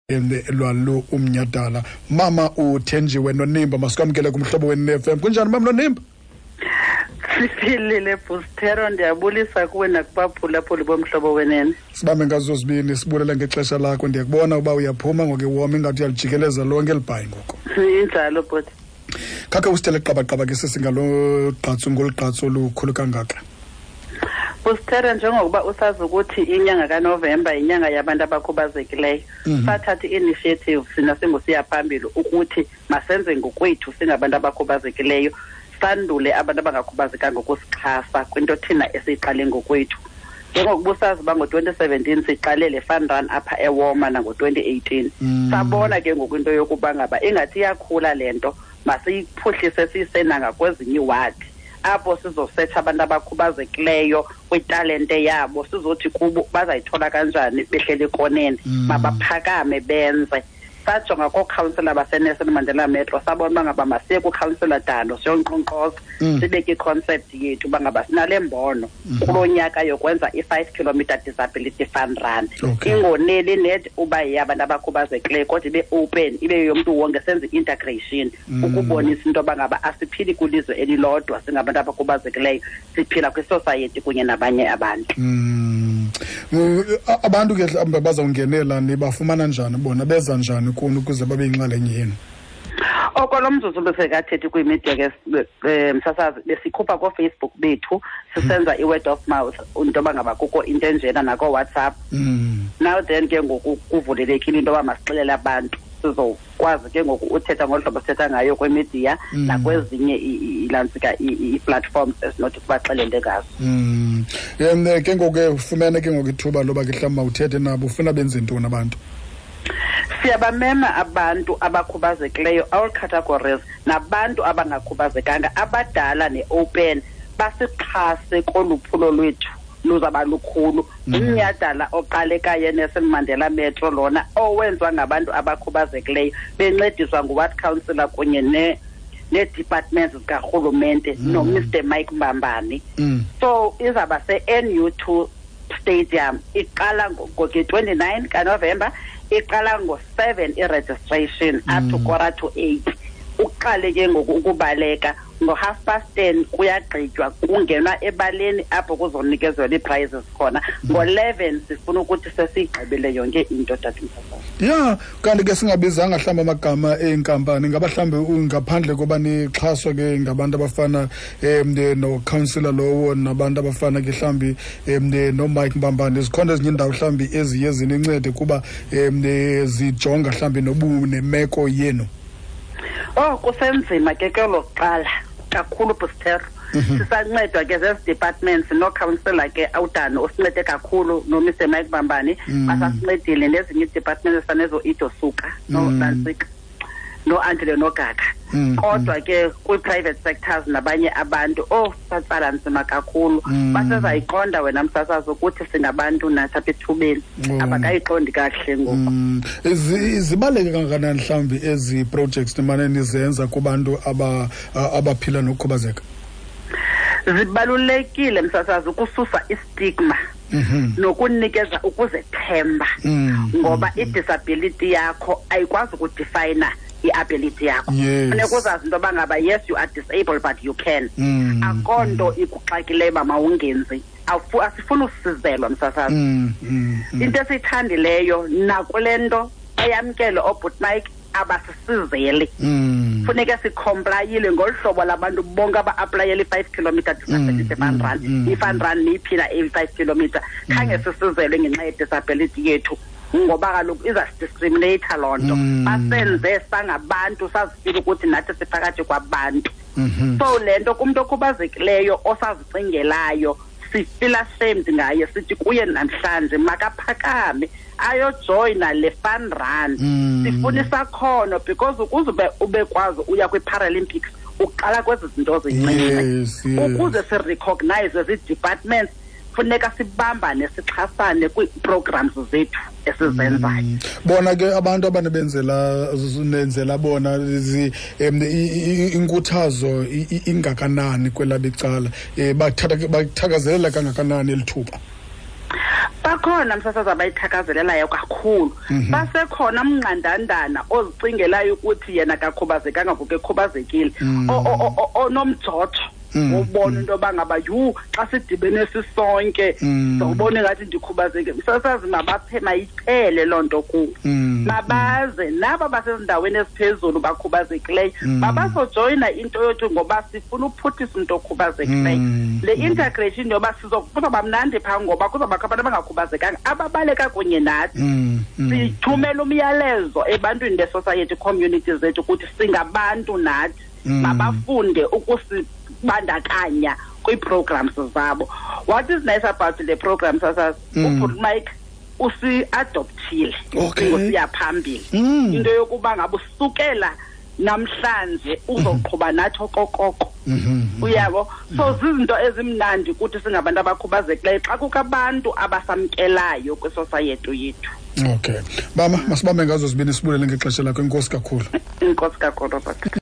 Lwalo umnyadala, Mama uThenjiwe Nonimba, masikwamkele kumhlobo weNFM. Kunjani, Mama Nonimba? Siphilile, Bustero. Ndiyabulisa kuwe nakubaphulaphuli bomhlobo wenene. Sibambe ngazo zibini, sibulela ngexesha lakho. Ndiyakubona uba uyaphuma ngoku iwoma, ingathi uyalijikeleza lonke elibhayi ngoku. Injalo, bhuti. Khakhe usithele qabaqaba ke sesingalo gqatso, ngolu gqatso olukhulu kangaka. Bustero, njengokuba usazi ukuthi inyanga kaNovemba yinyanga yabantu abakhubazekileyo, sathatha i-initiative sina singusiya phambili ukuthi masenze ngokwethu singabantu abakhubazekileyo, sandule abantu abangakhubazekanga ukusixhasa kwinto thina esiyiqale ngokwethu. Njengokuba usazi uba ngo-2017 siqale le fun run apha eWalmer, nango-2018, sabona ke ngoku into yokuba ngaba ingathi iyakhula le nto, masiyiphuhlise siyise nangakwezinye iiwadi apho sizosetsha abantu abakhubazekileyo kwitalente yabo, sizothi kubo bazayithola kanjani behleli ekoneni, mabaphakame benze. Sajonga kookhawunsela baseNelson Mandela Metro, sabona uba ngaba masiye kukhansela Dando siyonkqonkqoza, sibeke i-concept yethu uba ngaba sinale mbono kulo nyaka yokwenza i-5 kilometer disability fun run, ingoneli net uba yeyabantu abakhubazekileyo, kodwa ibe open, ibe yomntu wonke, senze i-integration ukubonisa into yoba ngaba asiphili kwilizwe elilodwa singabantu abakhubazekileyo, siphila kwisosayeti kunye nabanye abantu. Abantu ke mhlawumbi bazawungenela, nibafumana njani bona? Beza njani kuni ukuze babe yinxalenye yenu? Okolo mzuzu besekathethi kwimedia ke, msasazi, besikhupha kooFacebook bethu, sisenza i-word of mouth into yoba ngaba kukho into enjena, nakooWhatsApp. Now then ke ngoku kuvulelekile into yoba masixelele abantu, sizokwazi ke ngoku uthetha ngolu hlobo sithetha ngayo kwimidiya nakwezinye ilantsika ii-platforms esinothi sibaxelele ngazo. Ke ngoku ke ufumene ke ngoku ithuba loba ke mhlawumbi mawuthethe nabo, ufuna benze ntoni abantu? Siyabamema abantu abakhubazekileyo, all categories, nabantu abangakhubazekanga, abadala ne-open, basixhase kolu phulo lwethu luzaba lukhulu. Umnyhadala oqalekayo eNelson Mandela Metro lona owenziwa ngabantu abakhubazekileyo bencediswa nguward councillor kunye nee-departments zikarhulumente noMr Mike Mbambani. So izawuba se-NU 2 Stadium, iqala nge-29 kaNovemba, iqala ngo-7 i-registration up to 7:45. Uqale ke ngoku ukubaleka ngo-10:30, kuyagqitywa, kungenwa ebaleni apho kuzonikezelwa ii-prizes khona ngo-11. Sifuna ukuthi sesiyigqibile yonke into, tatimsasazi. Ya, kanti ke singabizanga mhlawumbi amagama eenkampani, ngaba mhlawumbi ngaphandle koba nixhaswa ke ngabantu abafana nocouncillor lowo nabantu abafana ke mhlawumbi noMike Mbambane, zikhona ezinye iindawo mhlawumbi eziye zinincede kuba zijonga mhlawumbi nobu nemeko yenu? Oh, kusenzima ke kwelo kuqala kakhulu, Bustero. Sisancedwa ke zezi departments nocouncillor ke awudani osincede kakhulu, noMr Mike Bambani, basasincedile, nezinye ii-departments ezifana nezo-Ido Suka noNantsika noAndile Nogaka. Kodwa ke kwi-private sectors nabanye abantu, oh, satsala nzima kakhulu. Basezayiqonda wena, msasazi, ukuthi singabantu nathi apha ethubeni. Abakayiqondi kakuhle ngoku. Zibaluleke kangakanani mhlawumbi ezi projects nimane nizenza kubantu abaphila nokukhubazeka? Zibalulekile, msasazi, ukususa istigma nokunikeza ukuzethemba, ngoba i-disability yakho ayikwazi ukudefina i-ability yakho. Funeka uzazi into yoba ngaba yes, you are disabled, but you can. Akho nto ikuxakileyo uba mawungenzi. Asifuni usizelwa, msasazi. Into esiyithandileyo nakule nto bayamkele oobhut Mike, abasisizeli. Funeke sicomplyile ngolu hlobo labantu bonke aba-aplayela i-5 kilometer disability fun run, i-fun run niyiphila eyi-5 kilometer, khange sisizelwe ngenxa yedisability yethu, ngoba kaloku izasidiscriminata loo nto. Basenze sangabantu, sazifila ukuthi nathi siphakathi kwabantu. So le nto kumntu okhubazekileyo osazicingelayo, sifila ashamed ngaye, sithi kuye namhlanje makaphakame ayojoyina le fun run. Sifuna isakhono, because ukuze ube kwazi uya kwi-Paralympics, uqala kwezi zinto zincinci. Ukuze sirecognize zii-departments, funeka sibambane, sixhasane kwii-programs zethu esizenzayo. Bona ke abantu abanebenzela nenzela bona, inkuthazo ingakanani kwelabo icala? Bathakazelela kangakanani eli thuba? Bakhona, msasazi, abayithakazelelayo kakhulu. Basekhona mnqandandana ozicingelayo ukuthi yena kakhubazekanga ngoku ekhubazekile, onomjojo ubona into yoba ngaba, yhu, xa sidibene sisonke ndawubona ingathi ndikhubazekile. Msasazi, mabaphe, mayiphele loo nto kuwo. Mabaze naba basezindaweni eziphezulu bakhubazekileyo, mabazojoyina into yothi ngoba sifuna uphuhlisa umntu okhubazekileyo. Le integration yoba kuzawuba mnandi phaa, ngoba kuzawubakho abantu abangakhubazekanga ababaleka kunye nathi. Sithumela umyalezo ebantwini be-society, community zethu, ukuthi singabantu nathi. Mabafunde ukusibandakanya kwii-programs zabo. What is nice about le program, sasazi, ubhuti Mike usi-adoptile siya phambili, into yokuba ngabe usukela namhlanje uzoqhuba nathi okokoko, uyabo. So zizinto ezimnandi ukuthi singabantu abakhubazekileyo xa kukho abantu abasamkelayo kwisosayeti yethu. Okay, mama, masibambe ngazo zibini, sibulele ngexesha lakho. Inkosi kakhulu. Inkosi kakhulu, Robert.